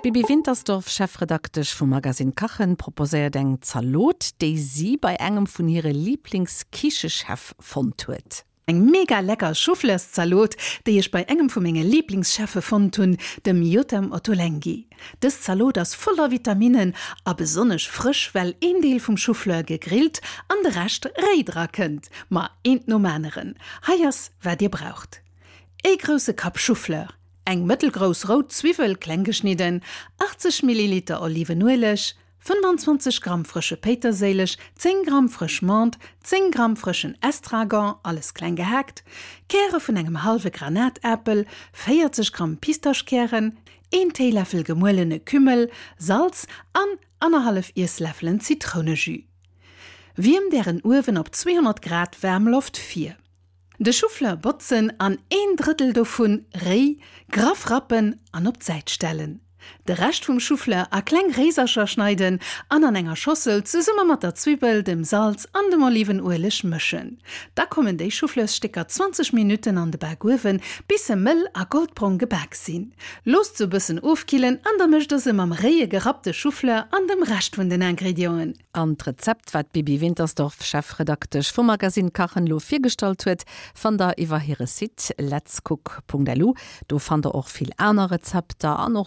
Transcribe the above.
D'Bibi Wintersdorf, Chefredaktesch vum Magazine Kachen, proposéiert eng Zalot, déi si bei engem vun hire Liiblingskichechef fonnt huet. Eng mega lecker Choufleurszalot, déi ech bei engem vu menge Liiblingscheffe fonnt hunn, dem Yotam Ottolenghi. Dës Zalot ass voller Vitaminnen a besonnesch frësch, well een Deel vum Choufleur gegrillt an de Rescht réi dra kënnt. Ma eent nom aneren. Hei ass wat dir braucht, Ee grousse Kapp Choufleur, eng mëttelgrouss rout Zwiwwel kleng geschnidden, 80 Milliliter Olivenueleg, 25 Gramm frësche Péiterséileg, 10 Gramm frësch Menthe, 10 Gramm frëschen Estragon, alles kleng gehaakt, Käre vun engem hallwe Granatäppel, 40 Gramm Pistaschkären, een Téiläffel gemuelene Kümmel, Salz an annerhallef Iessläffelen Zitrounejus. Wiermt ären Uewen op 200 Grad Waarmloft vir. De Choufleur botzen an een Drëttel dovun réi graff rappen an op d'Säit stellen. De Rescht vum Choufleur a kleng Réisercher schneiden an an enger Schossel zesumme mat der Zwibbel, dem Salz an dem Olivenueleg mëschen. Da kommen déi Choufleursstécker 20 Minutten an de Bakuewen, bis se mëll a goldbrong gebak sinn. Loosst se e bëssen ofkillen an da mëscht der se mam réie gerappte Choufleur an dem Rescht vun den Ingredienten. An d'Rezept, wat d'Bibi Wintersdorf, Chefredaktesch vum Magazine Kachen, elo virgestallt huet, fannt der iwwer hire Site letscook.lu. Do fannt der och vill aner Rezepter an och.